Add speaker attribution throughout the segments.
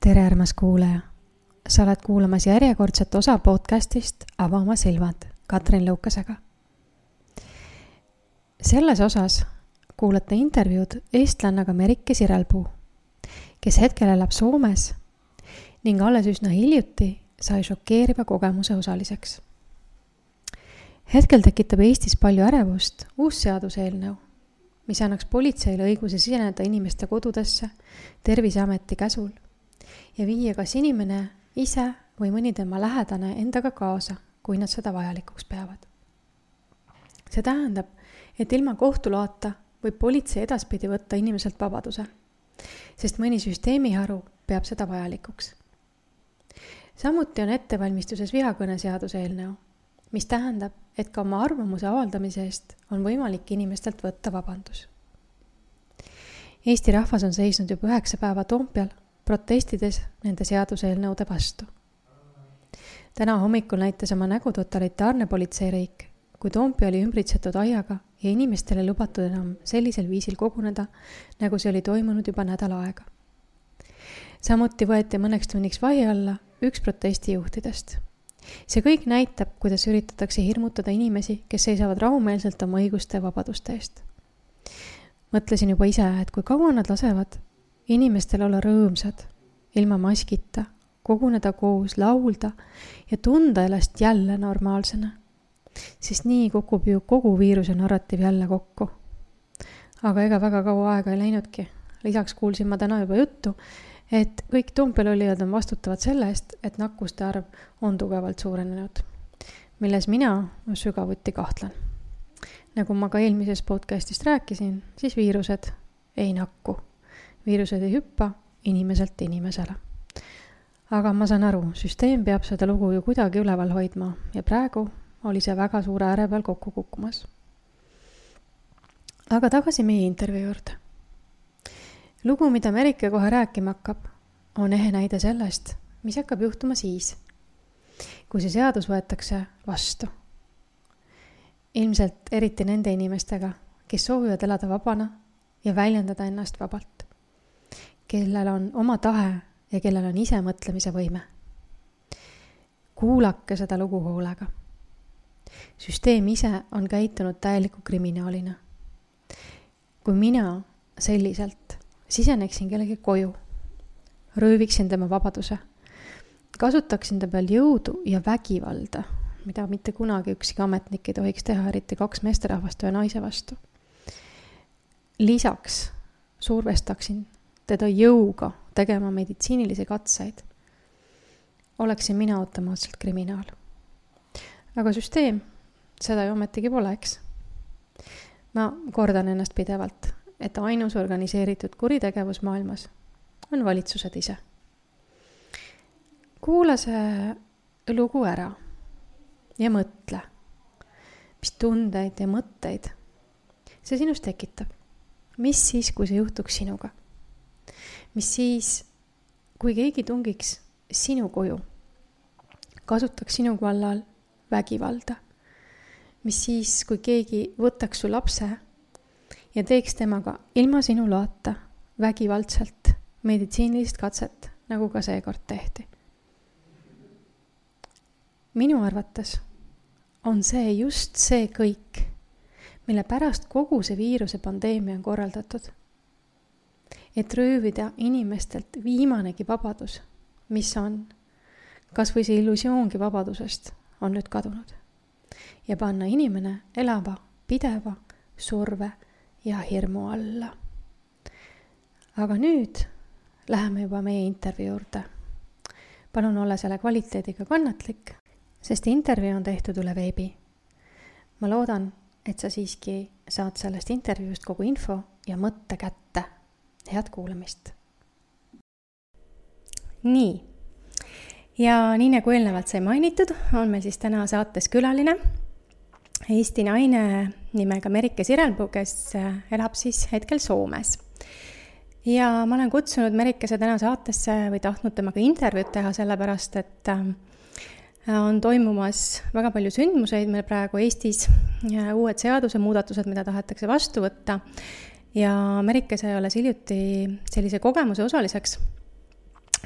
Speaker 1: tere, armas kuulaja! Sa oled kuulamas järjekordset osa podcastist Ava oma silmad Katrin Lõukasega. Selles osas kuulate intervjuud eestlannaga Merike Sirelpuu, kes hetkel elab Soomes ning alles üsna hiljuti sai šokeeriva kogemuse osaliseks. Hetkel tekitab Eestis palju ärevust uus seaduseelnõu, mis annaks politseile õiguse siseneda inimeste kodudesse Terviseameti käsul ja viia kas inimene ise või mõni tema lähedane endaga kaasa, kui nad seda vajalikuks peavad. See tähendab, et ilma kohtuloata võib politsei edaspidi võtta inimeselt vabaduse, sest mõni süsteemiharu peab seda vajalikuks. Samuti on ettevalmistuses vihakõne seaduseelnõu, mis tähendab, et ka oma arvamuse avaldamise eest on võimalik inimestelt võtta vabandus. Eesti rahvas on seisnud juba 9 päeva Toompeal, protestides nende seaduseelnõude vastu. Täna hommikul näitas oma nägu totalitaarne politseiriik, kui Toompea oli ümbritsetud aiaga ja inimestele lubatud enam sellisel viisil koguneda, nagu see oli toimunud juba nädal aega. Samuti võeti mõneks tunniks vahi alla üks protestijuhtidest. See kõik näitab, kuidas üritatakse hirmutada inimesi, kes seisavad rahumeelselt oma õiguste ja vabaduste eest. Mõtlesin juba ise, et kui kaua nad lasevad inimestel olla rõõmsad, ilma maskita, koguneda koos, laulda ja tunda ennast jälle normaalsena. Sest nii kukub ju kogu viiruse narratiiv jälle kokku. Aga ega väga kaua aega ei läinudki. Lisaks kuulsin ma täna juba juttu, et kõik Toompeal olijad on vastutavad selle eest, et nakkuste arv on tugevalt suurenenud, milles mina sügavuti kahtlen. Nagu ma ka eelmises podcastist rääkisin, siis viirused ei nakku. Viirused ei hüppa inimeselt inimesele. Aga ma saan aru, süsteem peab seda lugu ju kuidagi üleval hoidma ja praegu oli see väga suure ääre peal kokku kukkumas. Aga tagasi meie intervjuu juurde. Lugu, mida Merike kohe rääkima hakkab, on ehe näide sellest, mis hakkab juhtuma siis, kui see seadus võetakse vastu. Ilmselt eriti nende inimestega, kes soovivad elada vabana ja väljendada ennast vabalt, kellel on oma tahe ja kellel on ise mõtlemise võime. Kuulake seda lugu hoolega. Süsteem ise on käitunud täieliku kriminaalina. Kui mina selliselt siseneksin kellegi koju, rööviksin tema vabaduse, kasutaksin ta peal jõudu ja vägivalda, mida mitte kunagi ükski ametnik ei tohiks teha, eriti 2 meesterahvast või naise vastu. Lisaks survestaksin teda jõuga tegema meditsiinilisi katseid, oleksin mina automaatselt kriminaal. Aga süsteem seda ju ometigi pole, eks. Ma kordan ennast pidevalt, et ainus organiseeritud kuritegevus maailmas on valitsused ise. Kuula see lugu ära ja mõtle, mis tundeid ja mõtteid see sinus tekitab. Mis siis, kui see juhtuks sinuga? Mis siis, kui keegi tungiks sinu koju, kasutaks sinu kallal vägivalda? Mis siis, kui keegi võtaks su lapse ja teeks temaga ilma sinu loata vägivaldselt meditsiinilist katset, nagu ka seekord tehti? Minu arvates on see just see kõik, mille pärast kogu see viiruse pandeemia on korraldatud. Et röövida inimestelt viimanegi vabadus, mis on, kas või see illusioongi vabadusest on nüüd kadunud. Ja panna inimene elava, pideva, surve ja hirmu alla. Aga nüüd läheme juba meie intervjuu juurde. Palun olla selle kvaliteediga kannatlik, sest intervjuu on tehtud üle veebi. Ma loodan, et sa siiski saad sellest intervjuust kogu info ja mõtte kätte. Head kuulamist. Nii. Ja nii nagu eelnevalt sai mainitud, on meil siis täna saates külaline Eesti naine nimega Merike Sirelpuu, kes elab siis hetkel Soomes. Ja ma olen kutsunud Merikese täna saatesse või tahtnud temaga intervjuud teha sellepärast, et on toimumas väga palju sündmuseid meil praegu Eestis, uued seaduse muudatused, mida tahetakse vastu võtta. Ja Merike sai alles hiljuti sellise kogemuse osaliseks,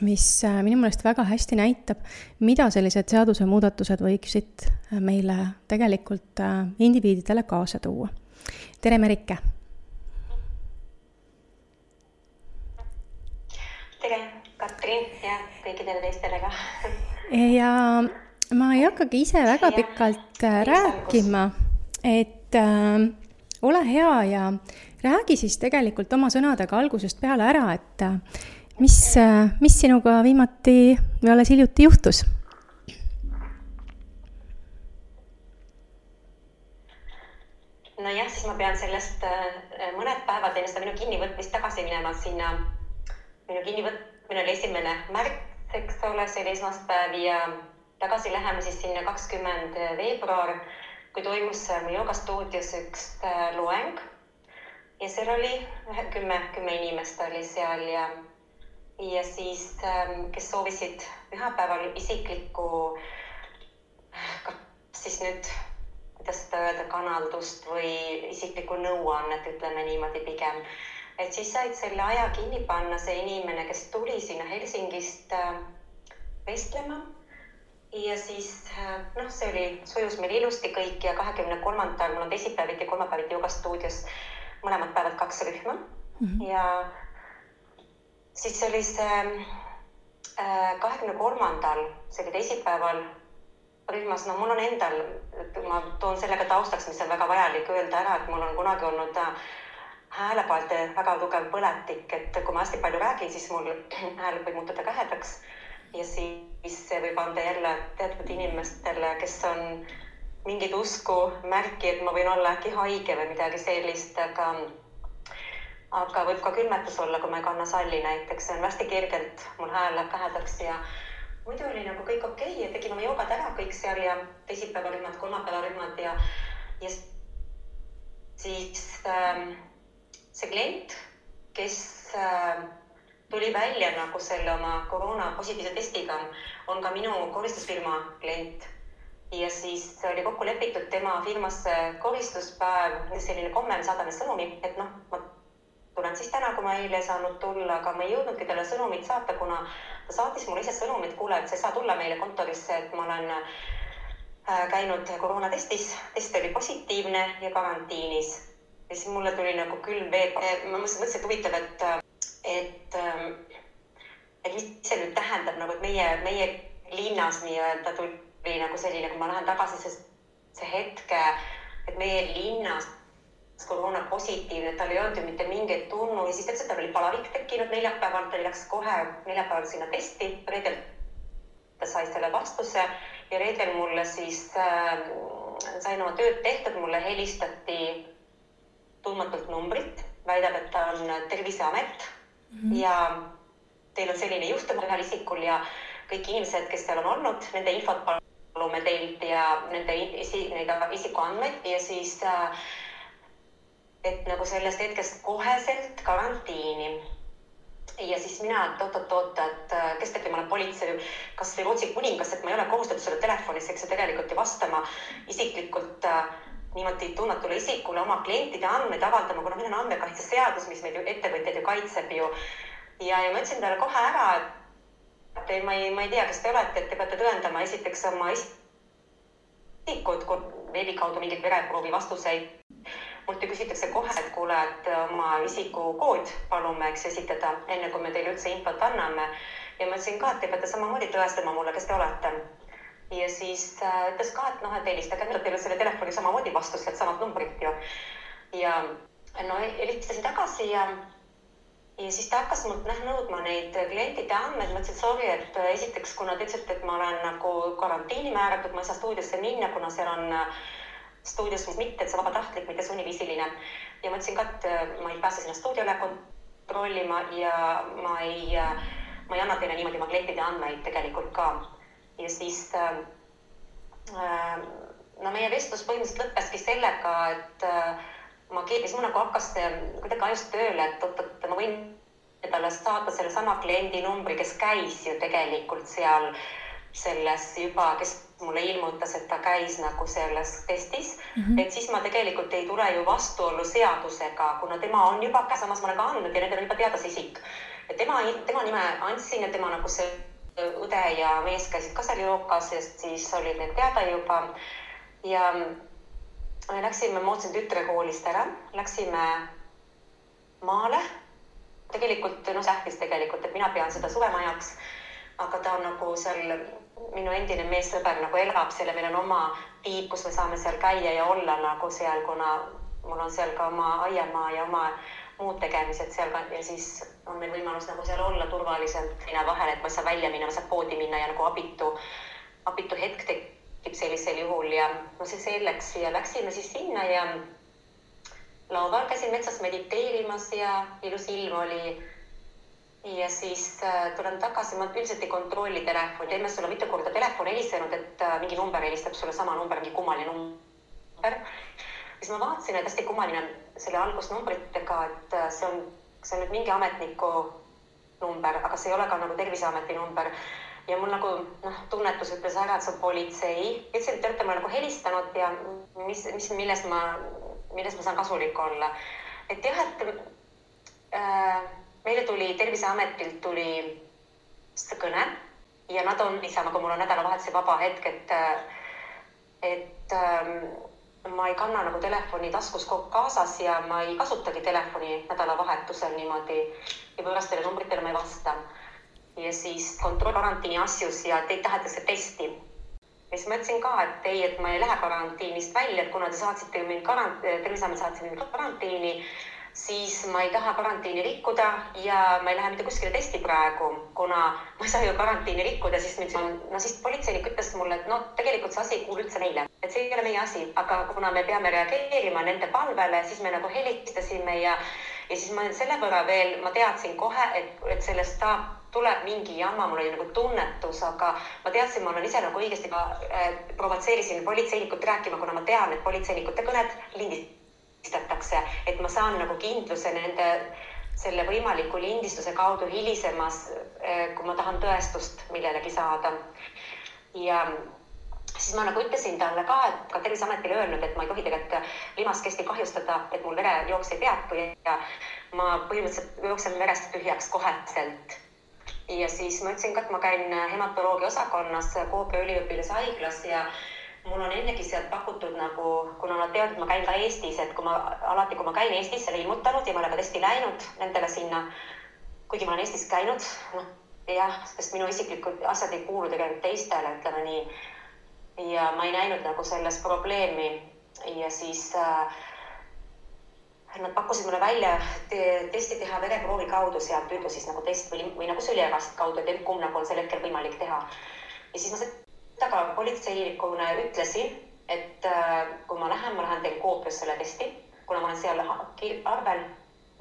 Speaker 1: mis minu meelest väga hästi näitab, mida sellised seadusemuudatused võiksid meile tegelikult indiviididele kaasa tuua. Tere, Merike!
Speaker 2: Tere, Katrin ja kõikidele teistele ka.
Speaker 1: Ja ma ei hakkagi ise väga pikalt rääkima, et ole hea ja räägi siis tegelikult oma sõnadega algusest peale ära, et mis sinuga viimati või alles hiljuti juhtus?
Speaker 2: No jah, siis ma pean sellest mõned päevad enne seda minu kinnivõtmist tagasi minema sinna. Minu kinnivõtmine oli 1. märts, eks ole, see oli esmaspäev ja tagasi läheme siis sinna 20. veebruar, kui toimus joogastuudios üks loeng ja seal oli 10 inimest oli seal ja siis, kes soovisid pühapäeval isiklikku, siis nüüd, kuidas seda öelda, kanaldust või isiklikku nõuannet, ütleme niimoodi pigem. Et siis said selle aja kinni panna see inimene, kes tuli sinna Helsingist vestlema. Ja siis, see sujus meil ilusti kõik ja 23. mul on teisipäeviti, kolmapäeviti joogastuudios mõlemad päevad 2 rühma. Ja siis oli see 23. see oli teisipäeval rühmas, mul on endal, ma toon sellega taustaks, mis on väga vajalik öelda ära, et mul on kunagi olnud häälepaelte väga tugev põletik, et kui ma hästi palju räägin, siis mul hääl võib muutuda kähedaks ja siis see võib anda jälle teatud inimestele, kes on mingid usku märki, et ma võin olla äkki haige või midagi sellist, aga võib ka külmetus olla, kui ma ei kanna salli näiteks, see on hästi kergelt, mul hääl läheb kähedaks ja muidu oli nagu kõik okei ja tegime oma joogad ära kõik seal ja teisipäeva rühmad, kolmapäeva rühmad ja siis see klient, kes tuli välja nagu selle oma koroona positiivse testiga, on ka minu koristusfirma klient. Ja siis oli kokku lepitud tema firmasse koristuspäev, selline komme, me saadame sõnumi, et ma tulen siis täna, kui ma eile saanud tulla, aga ma ei jõudnudki talle sõnumit saata, kuna ta saatis mulle ise sõnumit, kuule, et sa ei saa tulla meile kontorisse, et ma olen käinud koroonatestis, test oli positiivne ja karantiinis. Ja siis mulle tuli nagu külm veel, ma mõtlesin, et huvitav, et mis see nüüd tähendab, nagu, et meie linnas nii-öelda tuli nagu selline, kui ma lähen tagasi see hetke, et meie linnas koroona positiivne, et tal ei olnud ju mitte mingeid tunnu ja siis tal oli palavik tekkinud neljapäeval, ta läks kohe neljapäeval sinna testi, reedel ta sai selle vastuse ja reedel mulle siis sain oma tööd tehtud, mulle helistati tundmatult numbrit, väidab, et ta on Terviseamet ja teil on selline juhtum ühel isikul ja kõik inimesed, kes seal on olnud, nende infot palume teilt ja nende isikuandmeid ja siis, et nagu sellest hetkest koheselt karantiini. Ja siis mina, et kestelgi ma olen politsei, kas või Rootsi kuningas, et ma ei ole kohustatud selle telefonis, eks see tegelikult ju vastama isiklikult niimoodi tundmatule isikule oma klientide andmeid avaldama, kuna meil on andmekaitseseadus, mis meid ettevõtjaid ju kaitseb ju. Ja ma ütlesin talle kohe ära, et ma ei tea, kes te olete, et te peate tõendama esiteks oma isikud veebi kaudu mingid vereproovi vastuseid. Mult ju küsitakse kohe, et kuule, et oma isikukood palume esitada, enne kui me teile üldse infot anname. Ja ma ütlesin ka, et te peate samamoodi tõestama mulle, kes te olete. Ja siis ütles ka, et helistage, teile selle telefoni samamoodi vastus, et samad numbrid ju. Ja helistasin tagasi ja siis ta hakkas mult nõudma neid klientide andmeid. Ma ütlesin, sorry, et esiteks, kuna te ütlesite, et ma olen nagu karantiini määratud, ma ei saa stuudiosse minna, kuna seal on stuudios mitte, et see vabatahtlik, mitte sunniviisiline. Ja ma ütlesin ka, et ma ei pääse sinna stuudiole kontrollima ja ma ei anna teile niimoodi oma klientide andmeid tegelikult ka. Ja siis meie vestlus põhimõtteliselt lõppeski sellega, et siis mul nagu hakkas kuidagi ajust tööle, et ma võin talle saata selle sama kliendi numbri, kes käis ju tegelikult seal selles juba, kes mulle ilmutas, et ta käis nagu selles testis, et siis ma tegelikult ei tule ju vastuollu seadusega, kuna tema on juba samas ma olen ka andnud ja nendel on juba teadas isik. Ja tema nime andsin ja tema nagu see õde ja mees käisid ka seal jookas ja siis olid need teada juba. Ja me läksime Mootsi tütrekoolist ära, läksime maale. Tegelikult, sähvis tegelikult, et mina pean seda suvemajaks, aga ta on nagu seal, minu endine meessõber nagu elab seal ja meil on oma tiib, kus me saame seal käia ja olla nagu seal, kuna mul on seal ka oma aiamaa ja oma muud tegemised seal ka ja siis on meil võimalus nagu seal olla turvaliselt vahel, et ma ei saa välja minna, ma saan poodi minna ja nagu abitu hetk tekib sellisel juhul ja see selleks ja läksime siis sinna ja lauval käisin metsas mediteerimas ja ilus ilm oli ja siis tulen tagasi, ma üldiselt ei kontrolli telefoni, teeme sulle mitu korda telefon helisenud, et mingi number helistab sulle sama number, mingi kummaline number. Siis ma vaatasin, et hästi kummaline selle algusnumbritega, et see on nüüd mingi ametniku number, aga see ei ole ka nagu Terviseameti number. Ja mul nagu tunnetus ütles ära, et see on politsei. Ütlesin, et te olete mulle nagu helistanud ja milles ma saan kasulik olla. Et jah, et meile tuli Terviseametilt tuli kõne ja nad on niisama, kui mul on nädalavahetuse vaba hetk, et ma ei kanna nagu telefoni taskus kaasas ja ma ei kasutagi telefoni nädalavahetusel niimoodi ja võõrastele numbritele ma ei vasta. Ja siis kontroll karantiini asjus ja teid tahetakse testi. Ja siis ma ütlesin ka, et ma ei lähe karantiinist välja, et kuna te saatsite mind Terviseamet saatsid mind karantiini, siis ma ei taha karantiini rikkuda ja ma ei lähe mitte kuskile testi praegu, kuna ma ei saa ju karantiini rikkuda, siis politseinik ütles mulle, et tegelikult see asi ei kuulu üldse neile, et see ei ole meie asi, aga kuna me peame reageerima nende palvele, siis me nagu helistasime ja siis ma selle võrra veel, ma teadsin kohe, et sellest tuleb mingi jama, mul oli nagu tunnetus, aga ma teadsin, ma olen ise nagu õigesti provotseerisin politseinikut rääkima, kuna ma tean, et politseinikute kõned lindistatakse, et ma saan nagu kindluse nende selle võimaliku lindistuse kaudu hilisemas, kui ma tahan tõestust millelegi saada. Ja siis ma nagu ütlesin talle ka, et ka Terviseametile öelnud, et ma ei tohi tegelikult limaskesti kahjustada, et mul verejooks ei peatu ja ma põhimõtteliselt jooksen verest tühjaks koheselt. Ja siis ma ütlesin ka, et ma käin hematoloogia osakonnas Koopia üliõpilashaiglas ja mul on ennegi sealt pakutud nagu, kuna nad teavad, et ma käin ka Eestis, et kui ma käin Eestis selle ilmutanud ja ma olen ka testi läinud nendele sinna, kuigi ma olen Eestis käinud, jah, sest minu isiklikud asjad ei kuulu tegelikult teistele, ütleme nii. Ja ma ei näinud nagu selles probleemi ja siis nad pakkusid mulle välja testi teha vereproovi kaudu sealt püüdu siis nagu test või nagu süliegast kaudu, et kumb nagu on sel hetkel võimalik teha. Ja siis ma seda ka politseinikuna ütlesin, et kui ma lähen teil Koopias selle testi, kuna ma olen seal arvel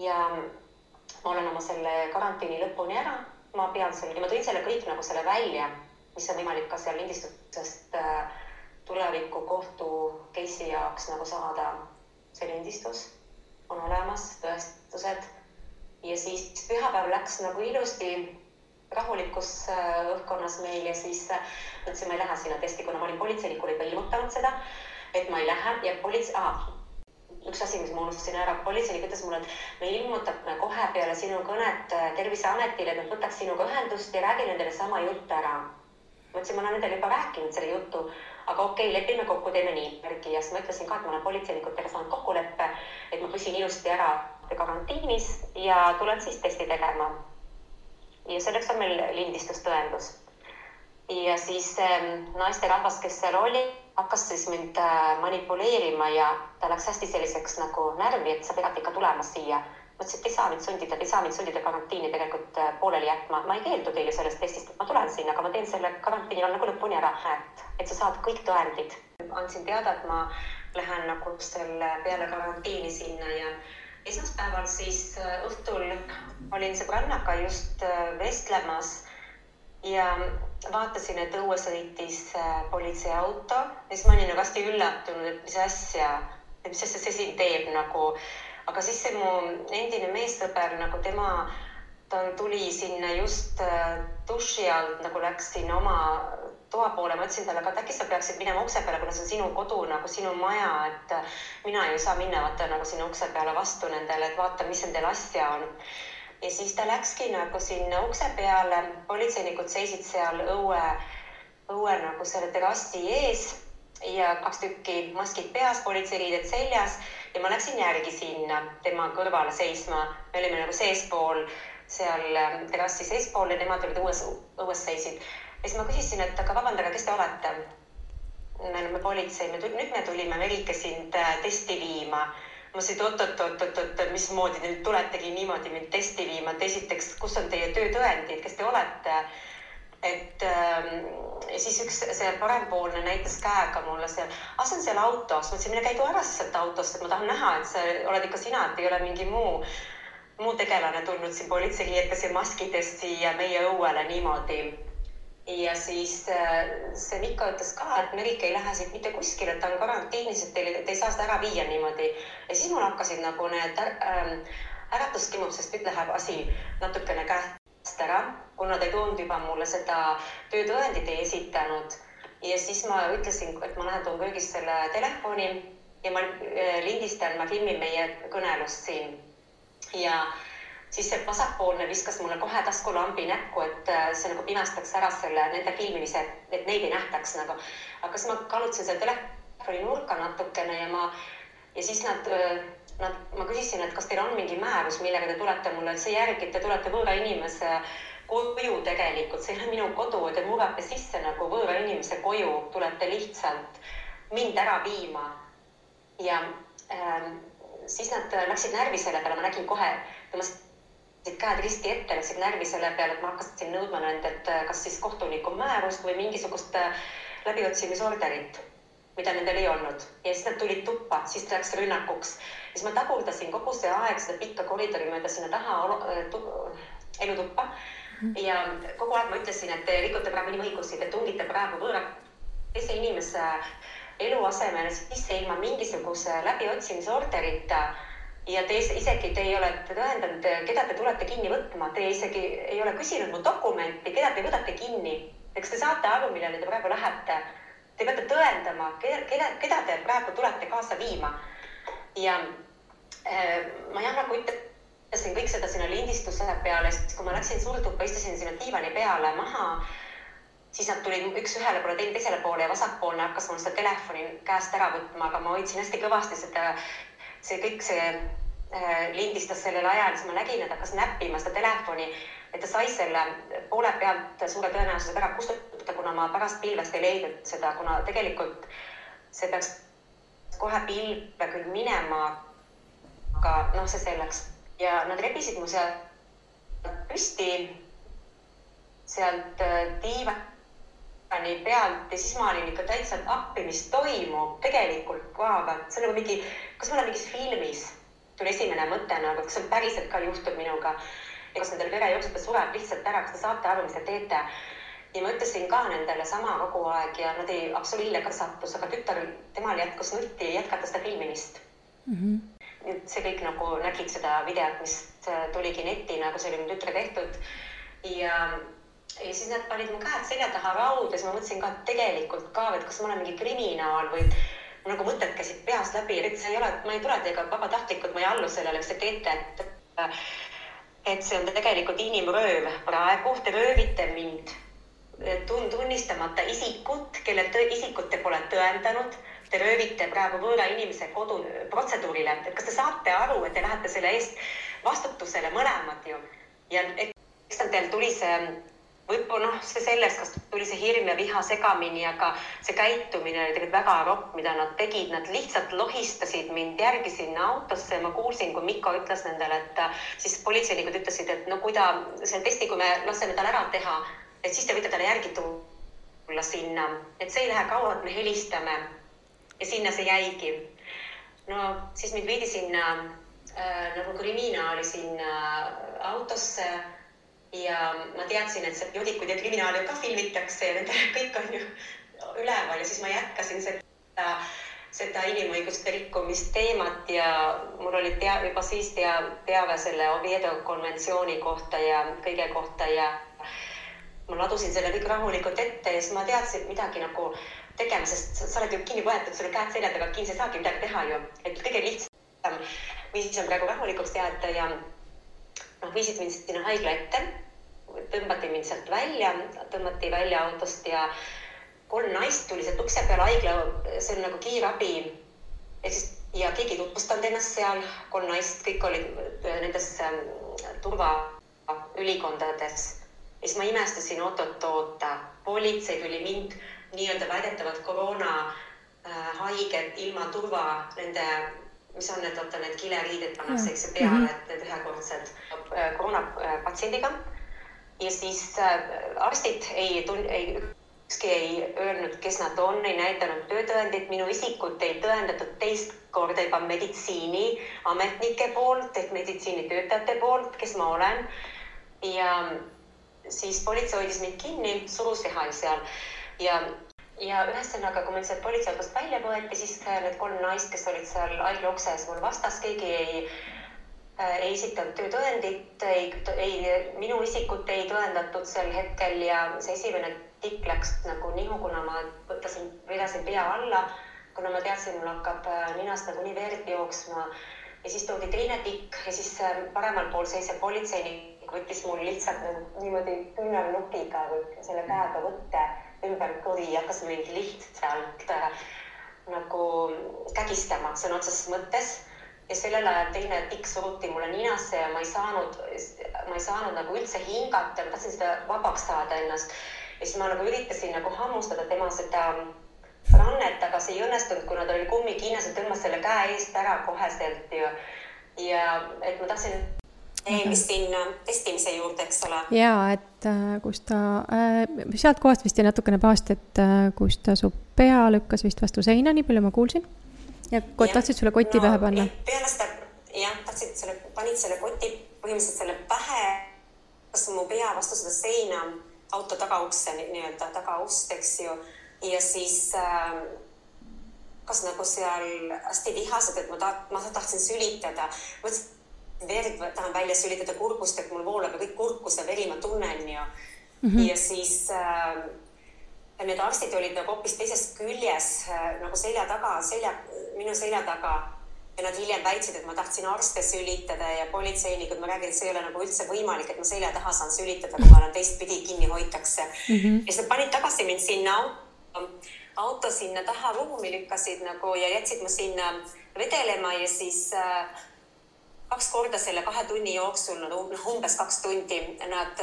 Speaker 2: ja ma olen oma selle karantiini lõpuni ära, ma pean selle, ja ma tõin selle kõik nagu selle välja, mis on võimalik ka seal lindistusest tuleviku kohtu case'i jaoks nagu saada see lindistus. On olemas tõestused ja siis pühapäev läks nagu ilusti rahulikus õhkkonnas meil ja siis mõtlesin, ma ei lähe sinna testi, kuna ma olin politseinikule juba ilmutanud seda, et ma ei lähe ja üks asi, mis ma unustasin ära, politseinik ütles mulle, et me ilmutame kohe peale sinu kõnet Terviseametile, et nad võtaks sinuga ühendust ja räägi nendele sama jutt ära. Ma ütlesin, ma olen nendele juba rääkinud selle jutu, aga okei, lepime kokku, teeme nii. Ja siis ma ütlesin ka, et ma olen politseinikutega saanud kokkuleppe, et ma püsin ilusti ära karantiinis ja tulen siis testi tegema. Ja selleks on meil lindistustõendus. Ja siis naisterahvas, kes seal oli, hakkas siis mind manipuleerima ja ta läks hästi selliseks nagu närvi, et sa pead ikka tulema siia. Ma ütlesin, et ei saa mind sundida karantiini tegelikult pooleli jätma. Ma ei keeldu teile sellest testist, et ma tulen sinna, aga ma teen selle karantiini nagu lõpuni ära, et sa saad kõik tõendid. Andsin teada, et ma lähen nagu selle peale karantiini sinna ja esmaspäeval siis õhtul olin sõbrannaga just vestlemas ja vaatasin, et õue sõitis politseiauto ja siis ma olin nagu hästi üllatunud, et mis asja see siin teeb nagu. Aga siis see mu endine meessõber, nagu ta tuli sinna just duši alt, nagu läks sinna oma toa poole. Ma ütlesin talle, et äkki sa peaksid minema ukse peale, kuna see on sinu kodu, nagu sinu maja, et mina ei saa minna vaata nagu sinna ukse peale vastu nendele, et vaata, mis nendel asja on. ja siis ta läkski nagu sinna ukse peale, politseinikud seisid seal õue nagu selle terrassi ees ja 2 tükki maskid peas, politseiriided seljas ja ma läksin järgi sinna tema kõrvale seisma. Me olime nagu seespool, seal terrassi seespool ja nemad olid õues seisid. Ja siis ma küsisin, et aga vabandage, kes te olete? Me oleme politsei, nüüd me tulime Merike sind testi viima. Ma ütlesin, oot, mismoodi te nüüd tuletegi niimoodi mind testi viima, et esiteks, kus on teie töötõendid, kes te olete? Ja siis üks see parempoolne näitas käega mulle seal, see on seal autos. Ma ütlesin, mine käigu ära sealt autost, et ma tahan näha, et sa oled ikka sina, et ei ole mingi muu tegelane tulnud siin politseiriietes ja maskides siia meie õuele niimoodi. Ja siis see Mikko ütles ka, et Merike ei lähe siit mitte kuskile, et ta on karantiinis, et te ei saa seda ära viia niimoodi. Ja siis mul hakkasid nagu need äratuskimud, sest nüüd läheb asi natukene käest ära, kuna ta ei toonud juba mulle seda töötõendit ei esitanud. Ja siis ma ütlesin, et ma lähen toon köögist selle telefoni ja ma lindistan, ma filmin meie kõnelust siin. Ja siis see vasakpoolne viskas mulle kohe taskulambi näkku, et see nagu pimestaks ära selle nende filmimise, et neid ei nähtaks nagu. Aga siis ma kalutasin selle telefoni nurka natukene ja siis ma küsisin, et kas teil on mingi määrus, millega te tulete mulle, et see järgi, et te tulete võõra inimese koju tegelikult, see ei ole minu kodu, te murrate sisse nagu võõra inimese koju, tulete lihtsalt mind ära viima. Ja siis nad läksid närvi selle peale, ma nägin kohe, tõmbasid käed risti ette, läksid närvi selle peale, et ma hakkasin nõudma nendelt kas siis kohtuniku määrust või mingisugust läbiotsimisorderit, mida nendel ei olnud. Ja siis nad tulid tuppa, siis läks rünnakuks. Siis ma tagurdasin kogu see aeg seda pikka koridori mööda sinna taha elutuppa. Ja kogu aeg ma ütlesin, et te rikute praegu inimõigusi, te tungite praegu võõra teise inimese eluasemele sisse ilma mingisuguse läbiotsimisorderita. Ja isegi te ei ole tõendanud, keda te tulete kinni võtma. Te isegi ei ole küsinud mu dokumenti, keda te võtate kinni. Eks te saate aru, millele te praegu lähete. Te peate tõendama, keda te praegu tulete kaasa viima. Ja ma nagu ütlesin kõik seda sinna lindistuse peale, sest kui ma läksin surduppa, istusin sinna diivani peale maha, siis nad tulid üks ühele poole, teisele poole ja vasakpoolne hakkas mul seda telefoni käest ära võtma, aga ma hoidsin hästi kõvasti seda see kõik lindistas sellel ajal, siis ma nägin, et hakkas näppima seda telefoni, et ta sai selle poole pealt suure tõenäosusega ära kustutada, kuna ma pärast pilvest ei leidnud seda, kuna tegelikult see peaks kohe pilve küll minema, aga see selleks. Ja nad rebisid mu sealt püsti, sealt diivani pealt ja siis ma olin ikka täitsa appi, mis toimub tegelikult ka, see on nagu mingi, kas ma olen mingis filmis, tuli esimene mõte, aga kas see päriselt ka juhtub minuga ja kas nendel verejooksud sureb lihtsalt ära, kas te saate aru, mis te teete. Ja ma ütlesin ka nendele sama kogu aeg ja nad ei absoliille ka sattus, aga tütar, temal jätkus nutti jätkata seda filmimist. See kõik nagu nägid seda videot, mis tuligi netti, nagu see oli mu tütre tehtud ja siis nad panid mu käed selja taha rauda ja siis ma mõtlesin ka tegelikult ka, et kas ma olen mingi kriminaal või nagu mõtted käisid peast läbi, et see ei ole, ma ei tule teiega vabatahtlikult, ma ei allu sellele, mis te teete, et see on tegelikult inimrööv. Praegu te röövite mind tunnistamata isikut, kelle isikut te pole tõendanud. Te röövite praegu võõra inimese kodu protseduurile. Et kas te saate aru, et te lähete selle eest vastutusele mõlemad ju? Ja eks teil tuli see võib-olla see sellest, kas tuli see hirm ja viha segamini, aga see käitumine oli tegelikult väga ropp, mida nad tegid. Nad lihtsalt lohistasid mind järgi sinna autosse. Ma kuulsin, kui Mikko ütles nendele, et siis politseinikud ütlesid, et no kui ta see testi, kui me laseme tal ära teha, et siis te võite talle järgi tulla sinna. Et see ei lähe kaua, et me helistame. Ja sinna see jäigi. No siis mind viidi sinna nagu kriminaali sinna autosse ja ma teadsin, et see joodikud ja kriminaali ka filmitakse ja nende kõik on ju üleval ja siis ma jätkasin seda inimõiguste rikkumist teemat ja mul oli juba siis teave selle Oviedo konventsiooni kohta ja kõige kohta ja ma ladusin selle kõik rahulikult ette ja siis ma teadsin midagi nagu tegema, sest sa oled ju kinni võetud, sul on käed selja taga kinni, sa ei saagi midagi teha ju. Et kõige lihtsam viis on praegu rahulikuks jääda ja viisid mind sinna haigla ette, tõmbati mind sealt välja, tõmmati välja autost ja 3 naist tuli sealt ukse peale haigla, see on nagu kiirabi. Ja keegi tutvustanud ennast seal, 3 naist, kõik olid nendes turvaülikondades. Ja siis ma imestasin oota. Politsei tuli mind nii-öelda väidetavalt koroona haiged ilma turva nende, mis on need kileriided pannakse eks peale, et need ühekordsed koroonapatsiendiga. Ja siis arstid ükski ei öelnud, kes nad on, ei näidanud töötõendit, minu isikut ei tõendatud teist korda juba meditsiiniametnike poolt ehk meditsiinitöötajate poolt, kes ma olen. Ja siis politsei hoidis mind kinni, surus vihal seal. Ja ühesõnaga, kui meil sealt politseiautost välja võeti, siis need 3 naist, kes olid seal haigla ukses mul vastas, keegi ei esitanud töötõendit, minu isikut ei tõendatud sel hetkel ja see esimene tikk läks nagu nihu, kuna ma vedasin pea alla, kuna ma teadsin, mul hakkab ninast nagu nii verd jooksma ja siis toodi teine tikk ja siis paremal pool seisev politseinik võttis mul lihtsalt niimoodi küünarnukiga või selle käega võtte ümber kõri ja hakkas mind lihtsalt nagu kägistama sõna otseses mõttes. Ja sellel ajal teine tikk suruti mulle ninasse ja ma ei saanud nagu üldse hingata, ma tahtsin seda vabaks saada ennast. Ja siis ma nagu üritasin nagu hammustada tema seda rannet, aga see ei õnnestunud, kuna ta oli kummikiinas ja tõmbas selle käe eest ära koheselt ja et ma tahtsin sinna testimise juurde, eks ole.
Speaker 1: Jaa, et kus ta, sealt kohast vist jäi natukene paast, et kus ta su pea lükkas vist vastu seina, nii palju ma kuulsin. Ja tahtsid sulle koti pähe panna?
Speaker 2: Peale seda, panid selle koti põhimõtteliselt selle pähe, kas mu pea vastu seda seina, auto tagaukse, nii-öelda tagaust, eks ju. Ja siis kas nagu seal hästi vihased, et ma tahtsin sülitada. Mõtlesin, verd tahan välja sülitada kurgust, et mul voolab ja kõik kurkus ja veri ma tunnen ju. Ja siis need arstid olid nagu hoopis teisest küljes nagu minu selja taga ja nad hiljem väitsid, et ma tahtsin arste sülitada ja politseinikud, ma räägin, et see ei ole nagu üldse võimalik, et ma selja taha saan sülitada, kui ma olen teistpidi kinni hoitakse. Ja siis nad panid tagasi mind sinna auto sinna taha ruumi lükkasid nagu ja jätsid mu sinna vedelema ja siis 2 korda selle 2 tunni jooksul, umbes 2 tundi, nad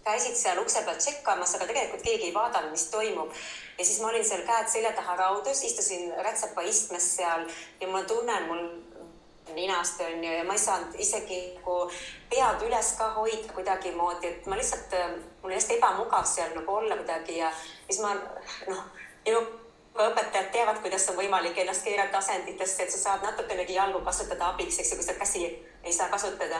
Speaker 2: käisid seal ukse peal tšekkamas, aga tegelikult keegi ei vaadanud, mis toimub. Ja siis ma olin seal käed selja taha raudus, istusin rätsepa istmes seal ja ma tunnen mul ninast on ju ja ma ei saanud isegi pead üles ka hoida kuidagi moodi, et ma lihtsalt, mul hästi ebamugav seal nagu olla kuidagi ja siis ma, minu õpetajad teavad, kuidas on võimalik ennast keerata asenditesse, et sa saad natukenegi jalgu kasutada abiks, eks ju, kui sa käsi ei saa kasutada.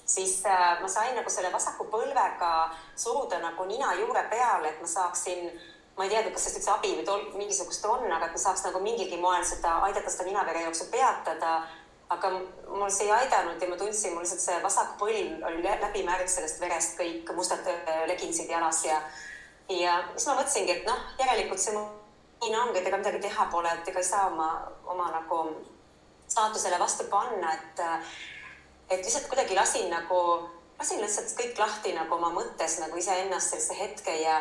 Speaker 2: Siis ma sain nagu selle vasaku põlvega suruda nagu nina juure peale, et ma saaksin, ma ei teadnud, kas sellest üldse abi või mingisugust on, aga et ma saaks nagu mingilgi moel aidata seda ninavere jooksu peatada, aga mul see ei aidanud ja ma tundsin, mul lihtsalt see vasak põlv oli läbimärg sellest verest, kõik mustad leginsid jalas ja siis ma mõtlesingi, et järelikult see nii ongi, et ega midagi teha pole, et ega ei saa oma nagu staatusele vastu panna, et lihtsalt kuidagi lasin lihtsalt kõik lahti nagu oma mõttes nagu iseennast sellise hetke ja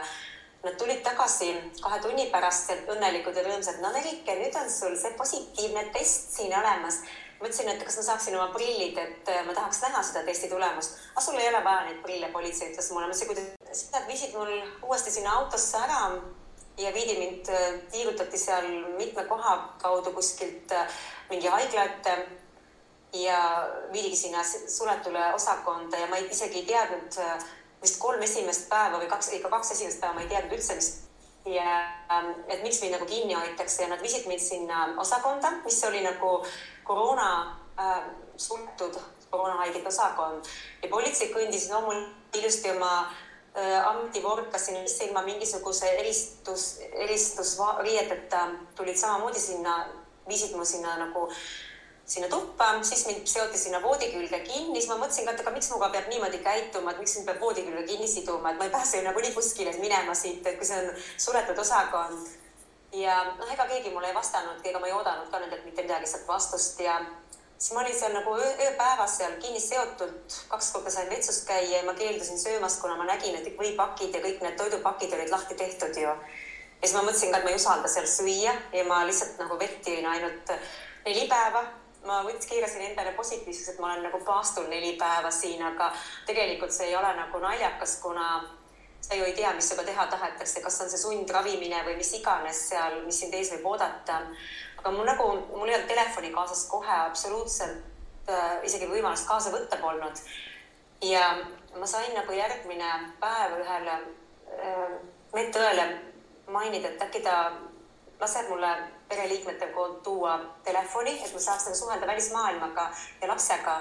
Speaker 2: nad tulid tagasi 2 tunni pärast õnnelikud ja rõõmsad. Nerike, nüüd on sul see positiivne test siin olemas. Mõtlesin, et kas ma saaksin oma prillid, et ma tahaks näha seda testi tulemust. Aga sul ei ole vaja neid prille, politsei ütles mulle. Siis nad viisid mul uuesti sinna autosse ära ja viidi mind, tiirutati seal mitme koha kaudu kuskilt mingi haigla ette ja viidigi sinna suletule osakonda ja ma isegi ei teadnud vist 3 esimest päeva või 2 esimest päeva ma ei teadnud üldse, et miks mind nagu kinni hoitakse ja nad viisid mind sinna osakonda, mis oli nagu suletud koroonahaigete osakond ja politsei kõndis mul ilusti oma ametivorkasin ilma mingisuguse eristusriieteta tulid samamoodi viisid mu sinna tuppa, siis mind seoti sinna voodi külge kinni, siis ma mõtlesin, et miks muga peab niimoodi käituma, et miks mind peab voodi külge kinni siduma, et ma ei pääse nagu nii kuskile minema siit, et kui see on suletud osakond. Ja ega keegi mulle ei vastanud, ega ma ei oodanud ka nendelt mitte midagi sealt vastust ja siis ma olin seal nagu ööpäevas seal kinni seotult, 2 korda sain vetsus käia ja ma keeldusin söömast, kuna ma nägin, et võipakid ja kõik need toidupakid olid lahti tehtud ju. Ja siis ma mõtlesin ka, et ma ei usalda seal süüa ja ma lihtsalt nagu vett jõin ainult 4 päeva. Ma keerasin endale positiivseks, et ma olen nagu paastul 4 päeva siin, aga tegelikult see ei ole nagu naljakas, kuna sa ju ei tea, mis sinuga teha tahetakse, kas on see sundravimine või mis iganes seal, mis sind ees võib oodata. Aga mul ei olnud telefoni kaasas kohe absoluutselt isegi võimalust kaasa võtta polnud. Ja ma sain nagu järgmine päev ühele medõele mainida, et äkki ta laseb mulle pereliikmete poolt tuua telefoni, et ma saaks nagu suhelda välismaailmaga ja lapsega.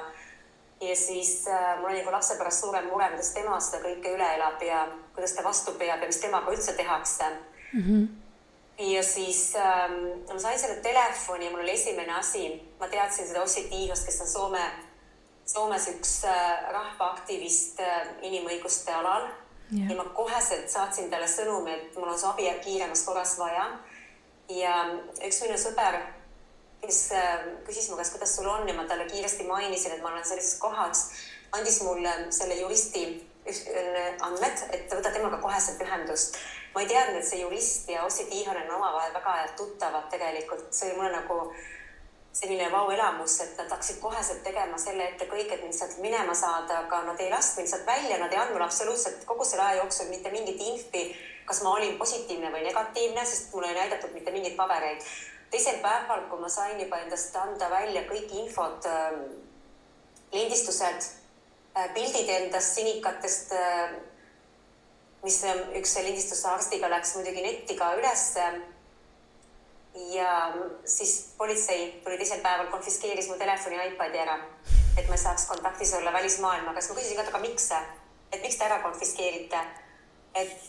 Speaker 2: Ja siis mul oli nagu lapse pärast suurem mure, kuidas tema seda kõike üle elab ja kuidas ta vastu peab ja mis temaga üldse tehakse. Ja siis ma sain selle telefoni ja mul oli esimene asi. Ma teadsin seda Ossi Tiihost, kes on Soomes üks rahvaaktivist inimõiguste alal. Ja ma koheselt saatsin talle sõnumi, et mul on see abi kiiremas korras vaja. Ja üks minu sõber, kes küsis mu käest, kuidas sul on ja ma talle kiiresti mainisin, et ma olen sellises kohas, andis mulle selle juristi andmed, et võta temaga koheselt ühendust. Ma ei teadnud, et see jurist ja Ossi Tiihonen omavahel väga tuttavad tegelikult. See oli mulle nagu selline vau-elamus, et nad hakkasid koheselt tegema selle ette kõik, et mind sealt minema saada, aga nad ei lasknud mind sealt välja, nad ei andnud absoluutselt kogu selle aja jooksul mitte mingit infi, kas ma olin positiivne või negatiivne, sest mulle ei näidatud mitte mingit pabereid. Teisel päeval, kui ma sain juba endast anda välja kõik infod, lindistused, pildid endast sinikatest, mis üks lindistuse arstiga läks muidugi netiga üles. Ja siis politsei tuli teisel päeval, konfiskeeris mu telefoni iPadi ära, et ma ei saaks kontaktis olla välismaailmaga. Siis ma küsisin ka, aga miks see? Et miks te ära konfiskeerite? Et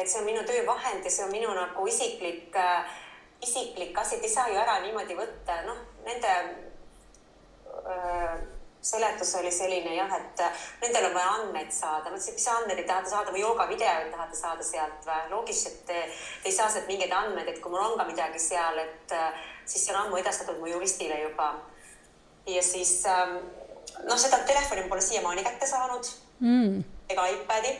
Speaker 2: see on minu töövahend ja see on minu nagu isiklik asi, et ei saa ju ära niimoodi võtta. Nende seletus oli selline jah, et nendel on vaja andmeid saada. Ma ütlesin, mis andmeid ei tahate saada või joogavideoid tahate saada sealt või? Loogis, et ei saa sealt mingeid andmeid, et kui mul on ka midagi seal, et siis see on ammu edastatud mu juristile juba. Ja siis seda telefoni pole siiamaani kätte saanud ega iPadi.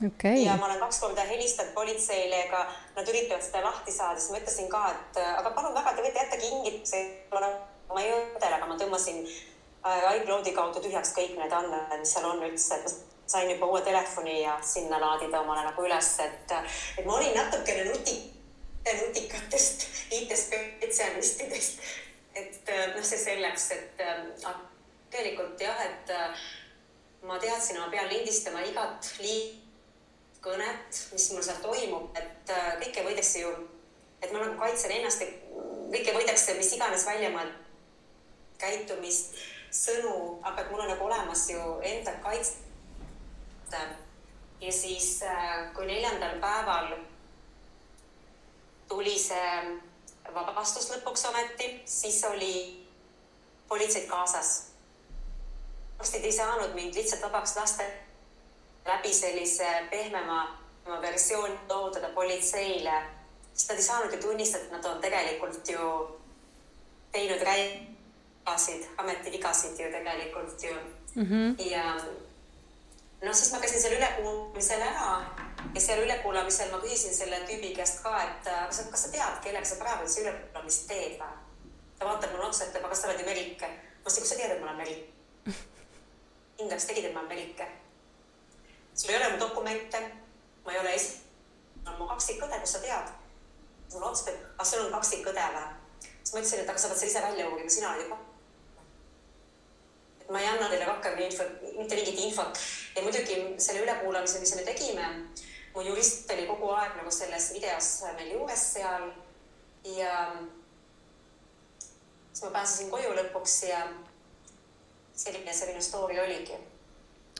Speaker 3: Okay.
Speaker 2: Ja ma olen 2 korda helistanud politseile, ega nad üritavad seda lahti saada, siis ma ütlesin ka, et aga palun väga, te võite jätta kingituse, ma ei õdele, aga ma tõmbasin iCloudi kaudu tühjaks kõik need andmed, mis seal on üldse, et ma sain juba uue telefoni ja sinna laadida omale nagu üles, et ma olin natukene nutikatest IT-spetsialistidest, et see selleks, et tegelikult jah, et ma teadsin, ma pean lindistama igat kõnet, mis mul seal toimub, et kõike võidakse ju, et ma nagu kaitsen ennast, kõike võidakse, mis iganes välja ma käitumist, sõnu, aga mul on nagu olemas ju enda kaitse. Ja siis, kui 4. päeval tuli see vabastus lõpuks ometi, siis oli politseid kaasas. Arstid ei saanud mind lihtsalt vabaks lasta läbi sellise pehmema versiooni toodada politseile, sest nad ei saanud ju tunnistada, et nad on tegelikult ju teinud ametivigasid ju tegelikult ju. Ja siis ma käisin seal ülekuulamisel ära ja seal ülekuulamisel ma küsisin selle tüübi käest ka, et kas sa tead, kellega sa praegu see ülekuulamist teed või? Ta vaatab mulle otsa, et aga sa oled ju Merike. Ma ütlesin, kus sa tead, et ma olen Merike? Kindlaks tegid, et ma olen Merike. Sul ei ole mu dokumente, ma ei ole on mu kaksikõde, kus sa tead? Mulle otsustab, aga sul on kaksikõde või? Siis ma ütlesin, et aga sa pead selle ise välja uurima, sina olid juba. Et ma ei anna teile rohkem mitte mingit infot. Ja muidugi selle ülekuulamise, mis me tegime, mu jurist oli kogu aeg nagu selles videos meil juures seal ja siis ma pääsesin koju lõpuks ja selline story oligi.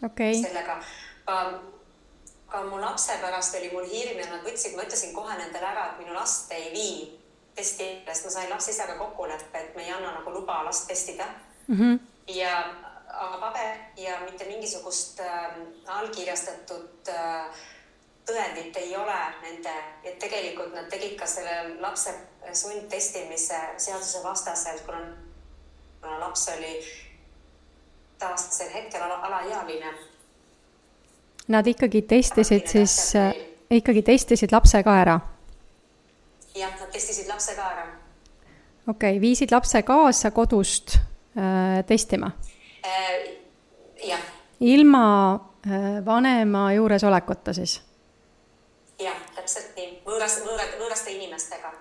Speaker 3: Okay.
Speaker 2: Sellega. Aga mu lapse pärast oli mul hirm ja nad võtsid, ma ütlesin kohe nendele ära, et minu last ei vii testi, sest ma sain lapse isaga kokkuleppe, et me ei anna nagu luba last testida. Ja paber ja mitte mingisugust allkirjastatud tõendit ei ole nende, et tegelikult nad tegid ka selle lapse sundtestimise seaduse vastaselt, kuna laps oli taastasel hetkel alaealine.
Speaker 1: Nad ikkagi testisid lapse ka ära?
Speaker 2: Jah, nad testisid lapse ka ära.
Speaker 1: Okei, viisid lapse kaasa kodust testima?
Speaker 2: Jah.
Speaker 1: Ilma vanema juuresolekuta siis?
Speaker 2: Jah, täpselt nii. Võõraste inimestega.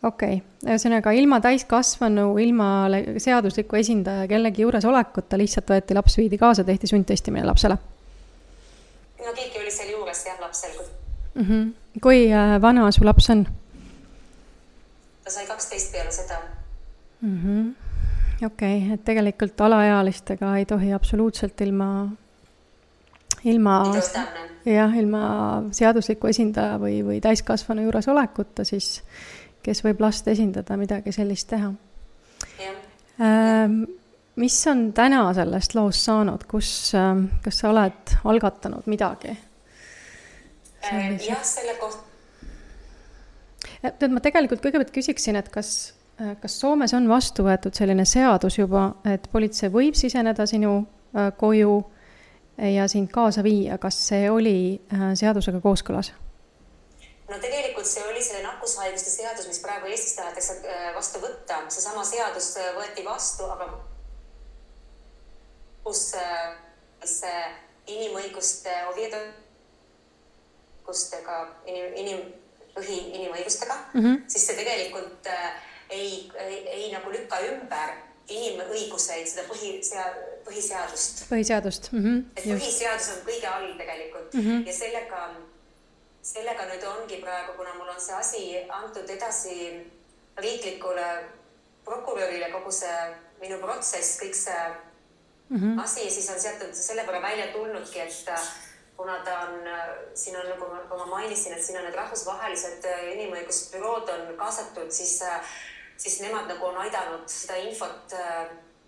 Speaker 1: Okei, ühesõnaga ilma täiskasvanu, ilma seadusliku esindaja kellegi juuresolekuta lihtsalt võeti laps, viidi kaasa, tehti sundtestimine lapsele?
Speaker 2: No keegi oli seal juures jah lapsel.
Speaker 1: Kui vana su laps on?
Speaker 2: Ta sai 12 peale seda.
Speaker 1: Okei, et tegelikult alaealistega ei tohi absoluutselt ilma seadusliku esindaja või täiskasvanu juures olekuta, siis kes võib last esindada, midagi sellist teha. Mis on täna sellest loost saanud? Kas sa oled algatanud midagi?
Speaker 2: Jah, selle kohta.
Speaker 1: Ma tegelikult kõigepealt küsiksin, et kas Soomes on vastu võetud selline seadus juba, et politsei võib siseneda sinu koju ja sind kaasa viia, kas see oli seadusega kooskõlas?
Speaker 2: No tegelikult see oli selle nakkushaiguste seadus, mis praegu Eestis tahetakse vastu võtta. See sama seadus võeti vastu, aga kus inimõiguste inimõigustega, siis see tegelikult ei nagu lükka ümber inimõiguseid, seda põhiseadust.
Speaker 1: Põhiseadust.
Speaker 2: Et põhiseadus on kõige all tegelikult ja sellega nüüd ongi praegu, kuna mul on see asi antud edasi riiklikule prokurörile, kogu see minu protsess, kõik see asi, siis on sealt selle võrra välja tulnudki, et kuna ta on, siin on, nagu ma mainisin, et siin on need rahvusvahelised inimõigusbürood on kaasatud, siis nemad nagu on aidanud seda infot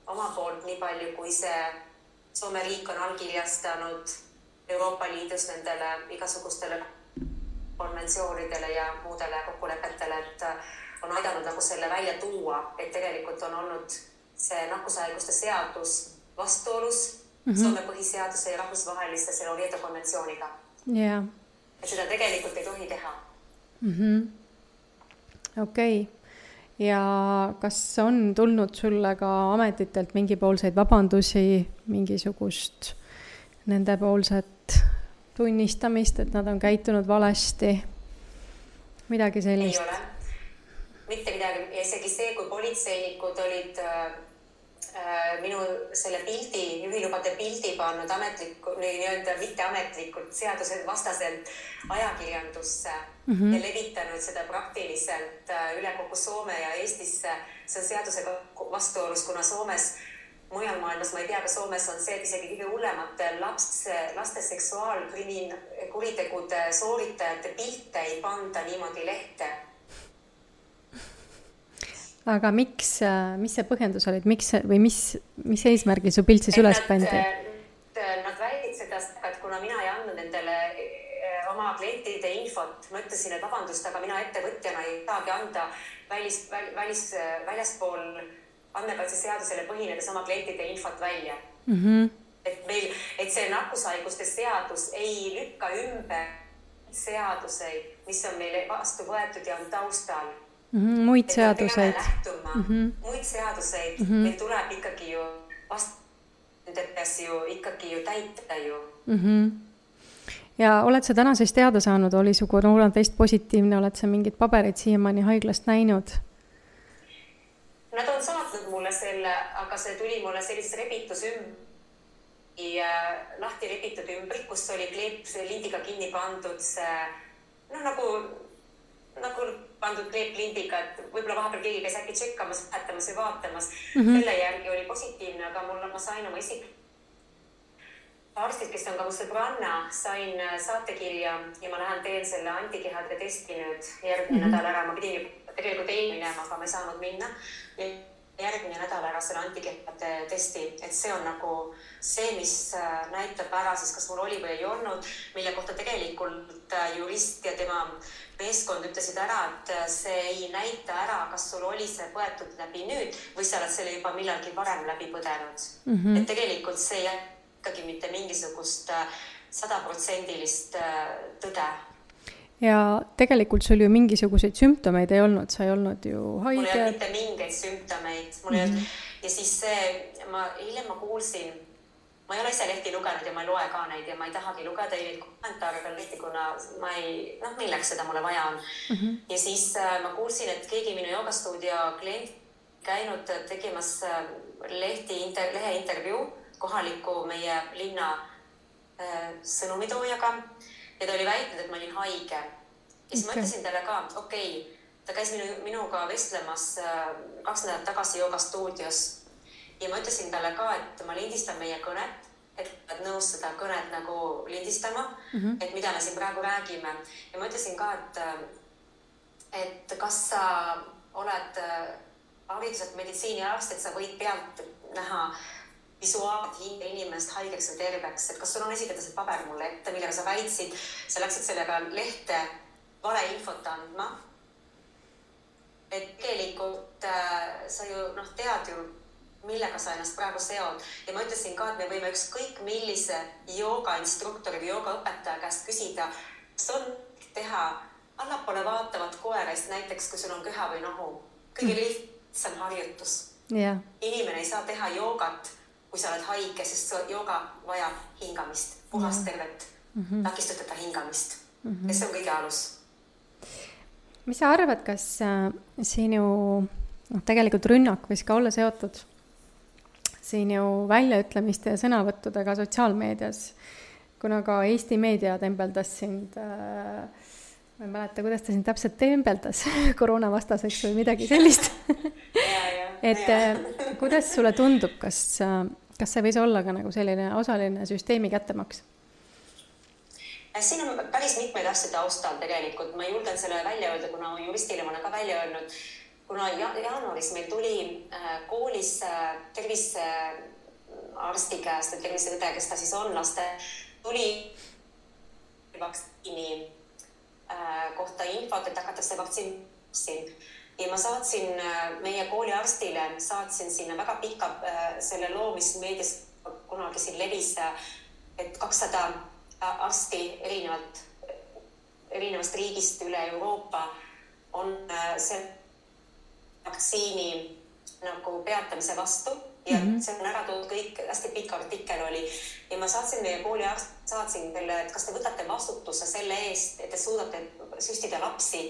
Speaker 2: oma poolt nii palju, kui see Soome riik on allkirjastanud Euroopa Liidus nendele igasugustele konventsioonidele ja muudele kokkulepetele, et on aidanud nagu selle välja tuua, et tegelikult on olnud see nakkushaiguste seadus vastuolus Soome põhiseaduse ja rahvusvaheliste selle Oviedo konventsiooniga.
Speaker 1: Yeah.
Speaker 2: Et seda tegelikult ei tohi teha.
Speaker 1: Okei. Ja kas on tulnud sulle ka ametitelt mingipoolseid vabandusi, mingisugust nendepoolset tunnistamist, et nad on käitunud valesti? Midagi sellist?
Speaker 2: Ei ole. Mitte midagi. Ja isegi see, kui politseinikud olid minu selle pildi, juhilubade pildi pannud mitteametlikult seaduse vastaselt ajakirjandusse ja levitanud seda praktiliselt üle kogu Soome ja Eestisse. See on seadusega vastuolus, kuna Soomes, mujal maailmas, ma ei tea, ka Soomes on see, et isegi kõige hullemate laste seksuaalkuritegude sooritajate pilte ei panda niimoodi lehte.
Speaker 1: Aga mis see põhjendus olid? Mis eesmärgil su pilt siis üles pandi?
Speaker 2: Nad väidid seda, et kuna mina ei andnud nendele oma klientide infot, ma ütlesin, et vabandust, aga mina ettevõtjana ei saagi anda väljaspool andmekaitseseadusele põhinedes oma klientide infot välja. Et see nakkushaiguste seadus ei lükka ümber seaduseid, mis on meile vastu võetud ja on taustal.
Speaker 1: Muid seaduseid.
Speaker 2: Muid seaduseid. Meil tuleb ikkagi ju ikkagi ju täita ju.
Speaker 1: Ja oled sa täna siis teada saanud, oli su koroonatest positiivne, oled sa mingid paberid siiamaani haiglast näinud?
Speaker 2: Nad on saatnud mulle selle, aga see tuli mulle sellises lahti repitud ümbrik, kus oli kleep lindiga kinni pandud see, nagu pandud kleeplindiga, et võib-olla vahepeal keegi käis äkki tšekkamas, lähetamas ja vaatamas. Selle järgi oli positiivne, aga ma sain oma arstid, kes on ka mu sõbranna, sain saatekirja ja ma lähen teen selle antikehade testi nüüd järgmine nädal ära. Ma pidin tegelikult ei minema, aga ma ei saanud minna. järgmine nädal ära selle antikehade testi, et see on nagu see, mis näitab ära siis, kas mul oli või ei olnud, mille kohta tegelikult jurist ja tema meeskond ütlesid ära, et see ei näita ära, kas sul oli see põetud läbi nüüd või sa oled selle juba millalgi varem läbi põdenud. Et tegelikult see ei ikkagi mitte mingisugust 100% tõde.
Speaker 1: Ja tegelikult sul ju mingisuguseid sümptomeid ei olnud, sa ei olnud ju haige.
Speaker 2: Mul ei olnud mitte mingeid sümptomeid. Ja siis hiljem ma kuulsin, ma ei ole ise lehti lugenud ja ma ei loe ka neid ja ma ei tahagi lugeda neid kommentaare peal lehti, kuna ma ei, milleks seda mulle vaja on. Ja siis ma kuulsin, et keegi minu joogastuudio klient käinud tegemas lehe intervjuu kohaliku meie linna sõnumitoojaga ja ta oli väitnud, et ma olin haige. Ja siis ma ütlesin talle ka, ta käis minuga vestlemas 2 nädalat tagasi joogastuudios ja ma ütlesin talle ka, et ma lindistan meie kõnet, et nõus seda kõnet nagu lindistama, et mida me siin praegu räägime. Ja ma ütlesin ka, et kas sa oled hariduselt meditsiiniarst, et sa võid pealt näha visuaalselt hinge inimest haigeks või terveks, et kas sul on esitada see paber mulle ette, millega sa väitsid, sa läksid sellega lehte valeinfot andma. Et tegelikult sa ju tead ju, millega sa ennast praegu seod. Ja ma ütlesin ka, et me võime ükskõik millise joogainstruktori või joogaõpetaja käest küsida, kas on teha allapoole vaatavat koerest, näiteks kui sul on köha või nohu. Kõige lihtsam harjutus.
Speaker 1: Yeah.
Speaker 2: Inimene ei saa teha joogat, kui sa oled haige, sest jooga vajab hingamist, puhast tervet, takistuteta hingamist. Ja see on kõige alus.
Speaker 1: Mis sa arvad, kas sinu tegelikult rünnak võis ka olla seotud sinu väljaütlemiste ja sõnavõttudega sotsiaalmeedias, kuna ka Eesti meedia tembeldas sind, ma ei mäleta, kuidas ta sind täpselt tembeldas, koroonavastaseks või midagi sellist. Et kuidas sulle tundub, kas see võis olla ka nagu selline osaline süsteemi kättemaks?
Speaker 2: Siin on päris mitmeid asju taustal tegelikult. Ma julgen selle välja öelda, kuna juristile ma olen ka välja öelnud. Kuna jaanuaris meil tuli koolis tervisearsti käest, terviseõde, kes ta siis on laste, tuli vaktsiini kohta infot, et hakatakse vaktsiin. Ja ma saatsin meie kooliarstile, saatsin sinna väga pika selle loo, mis meedias kunagi siin levis, et 200 arsti erinevast riigist üle Euroopa on see vaktsiini nagu peatamise vastu ja see on ära toodud kõik, hästi pikk artikkel oli. Ja ma saatsin meie kooliarst, saatsin teile, et kas te võtate vastutuse selle eest, et te suudate süstida lapsi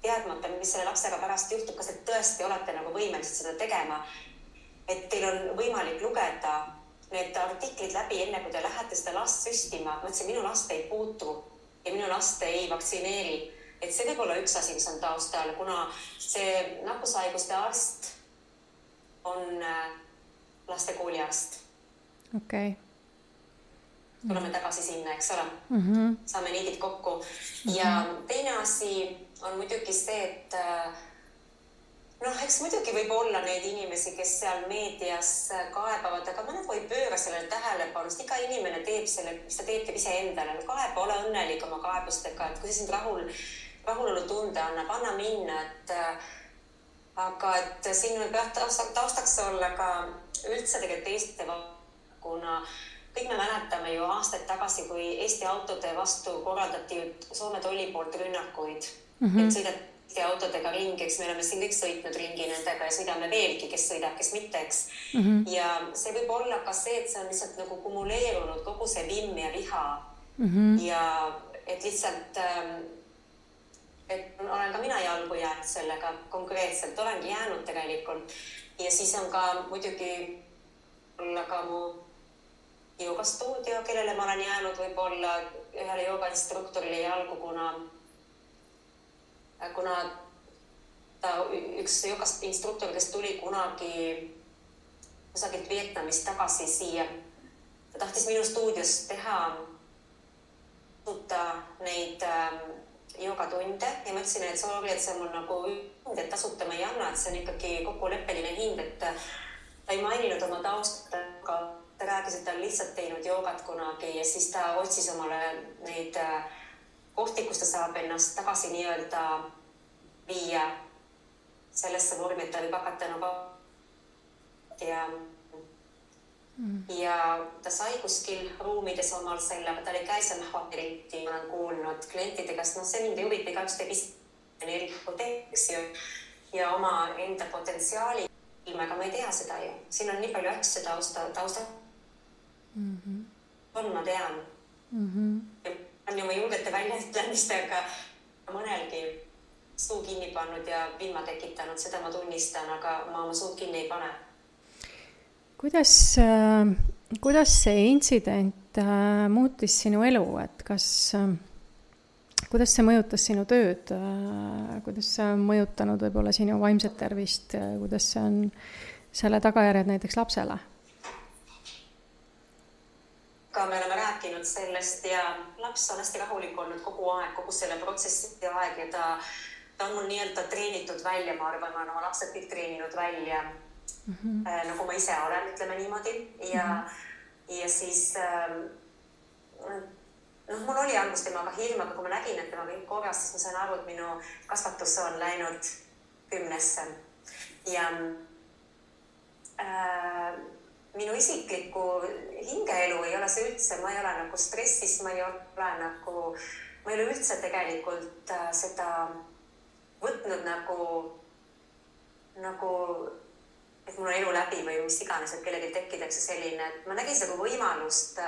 Speaker 2: teadmata, mis selle lapsega pärast juhtub, kas te tõesti olete nagu võimelised seda tegema, et teil on võimalik lugeda need artiklid läbi enne, kui te lähete seda last süstima. Ma ütlesin, minu last ei puutu ja minu last ei vaktsineeri. Et see võib olla üks asi, mis on taustal, kuna see nakkushaiguste arst on laste kooliarst.
Speaker 1: Okay.
Speaker 2: Tuleme tagasi sinna, eks ole. Saame niidid kokku. Ja teine asi on muidugi see, et eks muidugi võib olla neid inimesi, kes seal meedias kaebavad, aga mõned või pööra sellele tähelepanust. Iga inimene teeb selle, mis ta teeb ise endale. Kaeba, ole õnnelik oma kaebustega, et kui see sind rahulolu tunde annab, anna minna. Aga et siin võib taustaks olla ka üldse tegelikult Eesti, kuna kõik me mäletame ju aastaid tagasi, kui Eesti autode vastu korraldati Soome tolli poolt rünnakuid, et sõidab Eesti autodega ringi, eks me oleme siin kõik sõitnud ringi nendega ja sõidame veelgi, kes sõidab, kes mitte, eks. Ja see võib olla ka see, et see on lihtsalt nagu kumuleerunud kogu see vimm ja viha ja et lihtsalt, et olen ka mina jalgu jäänud sellega konkreetselt, olengi jäänud tegelikult ja siis on ka muidugi olla ka mu joogastuudio, kellele ma olen jäänud võib-olla ühele joogainstruktorile jalgu, kuna ta üks joogainstruktor, kes tuli kunagi kusagilt Vietnamist tagasi siia, ta tahtis minu stuudios teha neid joogatunde ja ma ütlesin, et sorry, et see on mul nagu hind, et tasuta ma ei anna, et see on ikkagi kokkuleppeline hind, et ta ei maininud oma taustat, aga ta rääkis, et ta on lihtsalt teinud joogat kunagi ja siis ta otsis omale neid kohti, kus ta saab ennast tagasi nii-öelda viia sellesse vormi, et ta võib hakata nagu ja ta sai kuskil ruumides omal selle, aga ta oli käisemahvateriti, ma olen kuulnud klientide käest, see mind ei huvita, igaüks teeb teeks ja oma enda potentsiaali, aga ma ei tea seda ju. Siin on nii palju asju tausta. Ma tean. Ja on ju ma julgete väljaütlemistega mõnelgi suu kinni pannud ja vilma tekitanud, seda ma tunnistan, aga ma oma suud kinni ei pane.
Speaker 1: Kuidas see intsident muutis sinu elu, et kuidas see mõjutas sinu tööd, kuidas see on mõjutanud võib-olla sinu vaimset tervist, kuidas see on selle tagajärjed näiteks lapsele?
Speaker 2: Ka me oleme rääkinud sellest ja laps on hästi rahulik olnud kogu aeg, kogu selle protsessi aeg ja ta on mul nii-öelda treenitud välja, ma arvan, ma olen oma lapsed kõik treeninud välja. Nagu ma ise olen, ütleme niimoodi ja siis mul oli algust temaga hirm, aga kui ma nägin, et temaga kõik korras, siis ma sain aru, et minu kasvatus on läinud 10-sse ja minu isikliku hingeelu ei ole see üldse, ma ei ole nagu stressis, ma ei ole üldse tegelikult seda võtnud nagu et mul on elu läbi või mis iganes, et kellelgi tekkidakse selline, et ma nägin seda kui võimalust.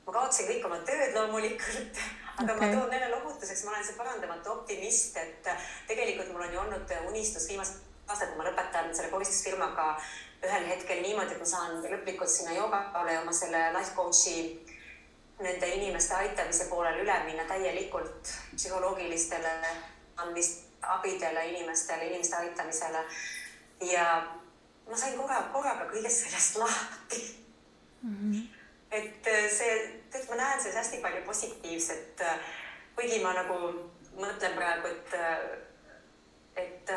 Speaker 2: Ma kaotsin kõik oma tööd loomulikult, aga ma toon neile lohutuseks, ma olen see parandamatu optimist, et tegelikult mul on ju olnud unistus viimast aastat, kui ma lõpetan selle koristusfirmaga ühel hetkel niimoodi, et ma saan lõplikult sinna joogale oma selle life coachi nende inimeste aitamise poolel üle minna täielikult psühholoogilistele abidele inimeste aitamisele ja ma sain korraga kõigest sellest lahti. Et ma näen selles hästi palju positiivset, kuigi ma nagu mõtlen praegu, et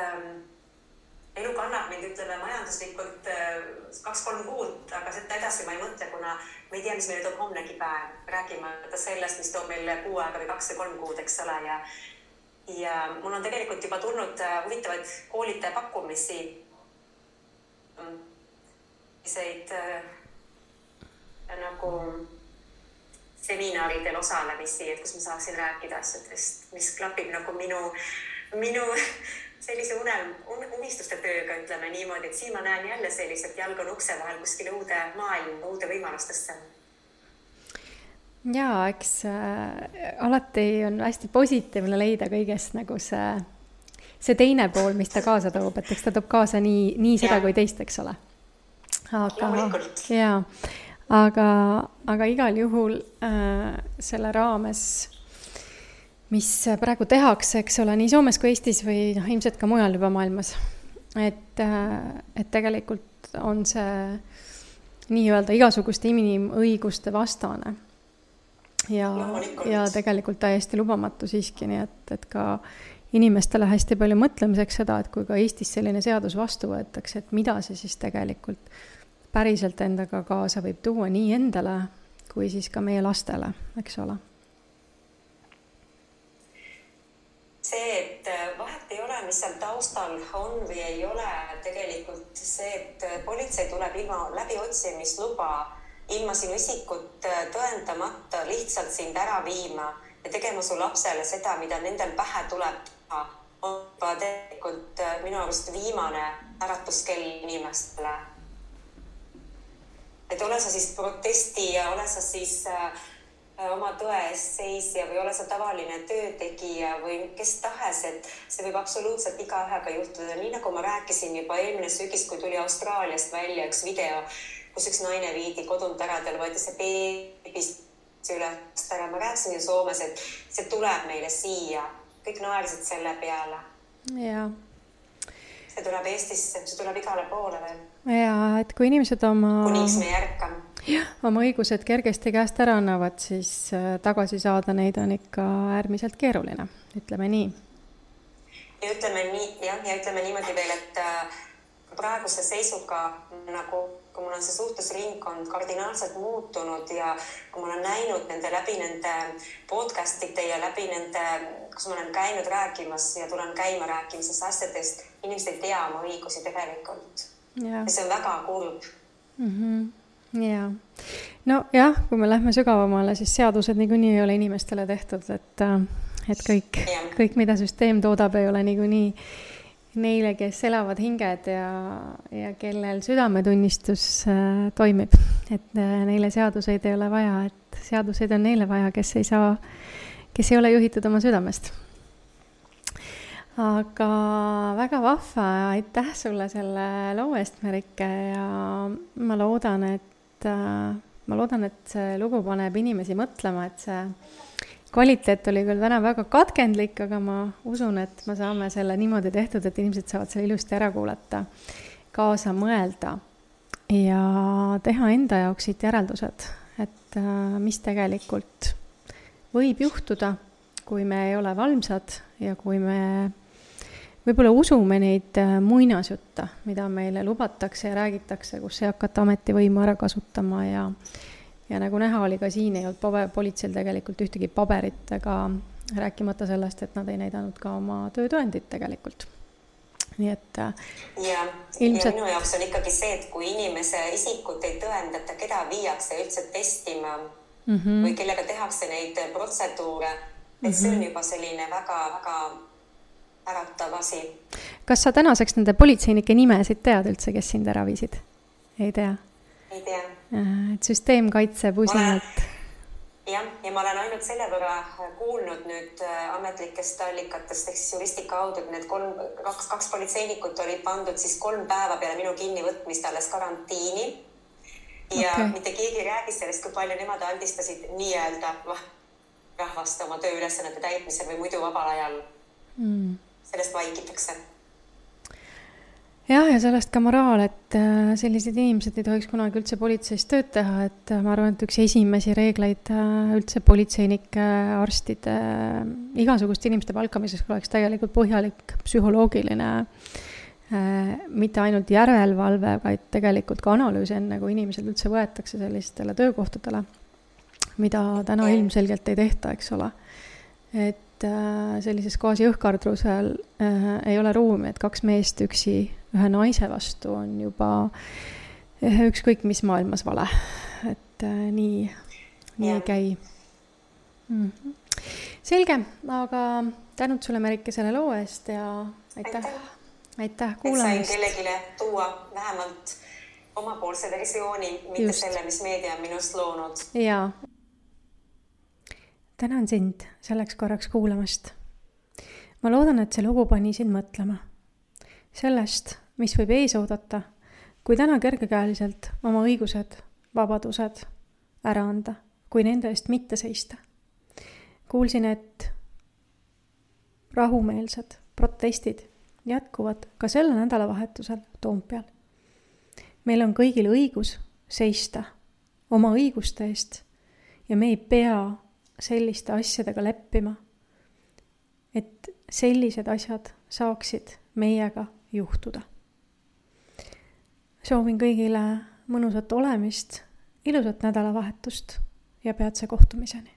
Speaker 2: elu kannab mind, ütleme, majanduslikult 2-3 kuud, aga seda edasi ma ei mõtle, kuna ma ei tea, mis meile toob homnegi päev. Räägime sellest, mis toob meile 6 aega või 2 või 3 kuud, eks ole. Ja mul on tegelikult juba tulnud huvitavaid koolitaja pakkumisi, nagu seminaridel osalemisi, et kus ma saaksin rääkida asjadest, mis klapib nagu minu sellise unistuste tööga, ütleme niimoodi, et siin ma näen jälle sellised jalg on ukse vahel kuskile uude maailma, uude võimalustesse.
Speaker 1: Jaa, eks alati on hästi positiivne leida kõigest nagu see teine pool, mis ta kaasa toob, et eks ta toob kaasa nii seda kui teist, eks ole. Aga igal juhul selle raames, mis praegu tehakse, eks ole, nii Soomes kui Eestis või ilmselt ka mujal juba maailmas, et tegelikult on see nii-öelda igasuguste inimõiguste vastane ja tegelikult täiesti lubamatu siiski, nii et ka inimestele hästi palju mõtlemiseks seda, et kui ka Eestis selline seadus vastu võetakse, et mida see siis tegelikult päriselt endaga kaasa võib tuua nii endale kui siis ka meie lastele, eks ole.
Speaker 2: See, et vahet ei ole, mis seal taustal on või ei ole, tegelikult see, et politsei tuleb läbiotsimisluba ilma sinu isikut tõendamata lihtsalt sind ära viima ja tegema su lapsele seda, mida nendel pähe tuleb teha, on tegelikult minu arust viimane äratuskell inimestele. Et ole sa siis protestija, ole sa siis oma tõe eest seisja või ole sa tavaline töötegija või kes tahes, et see võib absoluutselt igaühega juhtuda. Nii nagu ma rääkisin juba eelmine sügis, kui tuli Austraaliast välja üks video, kus üks naine viidi kodunt ära, tal võeti see beebist üles ära. Ma rääkisin ju Soomes, et see tuleb meile siia. Kõik naersid selle peale.
Speaker 1: Jaa.
Speaker 2: See tuleb Eestisse, see tuleb igale poole veel.
Speaker 1: Ja, et kui inimesed
Speaker 2: kuniks me järkam.
Speaker 1: oma õigused kergesti käest ära annavad, siis tagasi saada neid on ikka äärmiselt keeruline, ütleme nii.
Speaker 2: Ja ütleme niimoodi veel, et praeguse seisuga nagu, kui mul on see suhtlusringkond kardinaalselt muutunud ja kui ma olen näinud läbi nende podcastite ja läbi nende, kus ma olen käinud rääkimas ja tulen käima rääkimises asjadest, inimesed ei tea oma õigusi tegelikult. Ja see on väga kurb.
Speaker 1: Jaa. No jah, kui me lähme sügavamale, siis seadused niikuinii ei ole inimestele tehtud, et kõik, mida süsteem toodab, ei ole niikuinii neile, kes elavad hinged ja kellel südametunnistus toimib. Et neile seaduseid ei ole vaja, et seaduseid on neile vaja, kes ei ole juhitud oma südamest. Aga väga vahva, aitäh sulle selle loo eest, Merike, ja ma loodan, et see lugu paneb inimesi mõtlema, et see kvaliteet oli küll täna väga katkendlik, aga ma usun, et me saame selle niimoodi tehtud, et inimesed saavad selle ilusti ära kuulata, kaasa mõelda ja teha enda jaoks siit järeldused, et mis tegelikult võib juhtuda, kui me ei ole valmsad ja kui me võib-olla usume neid muinasjutte, mida meile lubatakse ja räägitakse, kus ei hakata ametivõimu ära kasutama ja nagu näha oli ka siin, ei olnud politseil tegelikult ühtegi paberit, ega rääkimata sellest, et nad ei näidanud ka oma töötõendit tegelikult. Nii et
Speaker 2: ilmselt... ja minu jaoks on ikkagi see, et kui inimese isikut ei tõendata, keda viiakse üldse testima või kellega tehakse neid protseduure, et see on juba selline väga-väga äratav asi.
Speaker 1: Kas sa tänaseks nende politseinike nimesid tead üldse, kes sind ära viisid? Ei tea?
Speaker 2: Ei tea.
Speaker 1: Et süsteem kaitseb usinalt.
Speaker 2: Ja ma olen ainult selle võrra kuulnud nüüd ametlikest allikatest, ehk siis juristi kaudu, et need kaks politseinikut olid pandud siis 3 päeva peale minu kinnivõtmist alles karantiini. Ja mitte keegi räägis sellest, kui palju nemad aldistasid nii-öelda rahvast oma tööülesannete täitmisel või muidu vabal ajal. Sellest vaikitakse.
Speaker 1: Jah, ja sellest ka moraal, et sellised inimesed ei tohiks kunagi üldse politseis tööd teha, et ma arvan, et üks esimesi reegleid üldse politseinike, arstide, igasuguste inimeste palkamiseks oleks tegelikult põhjalik psühholoogiline, mitte ainult järelevalve, vaid tegelikult ka analüüs enne, kui inimesed üldse võetakse sellistele töökohtadele, mida täna ilmselgelt ei tehta, eks ole. Et sellises gaasi õhkardrusel ei ole ruumi, et 2 meest üksi ühe naise vastu on juba ükskõik mis maailmas vale. Et nii ei käi. Selge, aga tänud sulle, Merike, selle loo eest ja aitäh kuulamist.
Speaker 2: Et sain kellegile tuua vähemalt omapoolse versiooni, mitte selle, mis meedia on minust loonud.
Speaker 1: Jaa. Tänan sind selleks korraks kuulamast. Ma loodan, et see lugu pani sind mõtlema. Sellest, mis võib ees oodata, kui täna kergekäeliselt oma õigused, vabadused ära anda, kui nende eest mitte seista. Kuulsin, et rahumeelsed protestid jätkuvad ka selle nädalavahetusel Toompeal. Meil on kõigil õigus seista oma õiguste eest ja me ei pea selliste asjadega leppima, et sellised asjad saaksid meiega juhtuda. Soovin kõigile mõnusat olemist, ilusat nädalavahetust ja peatse kohtumiseni.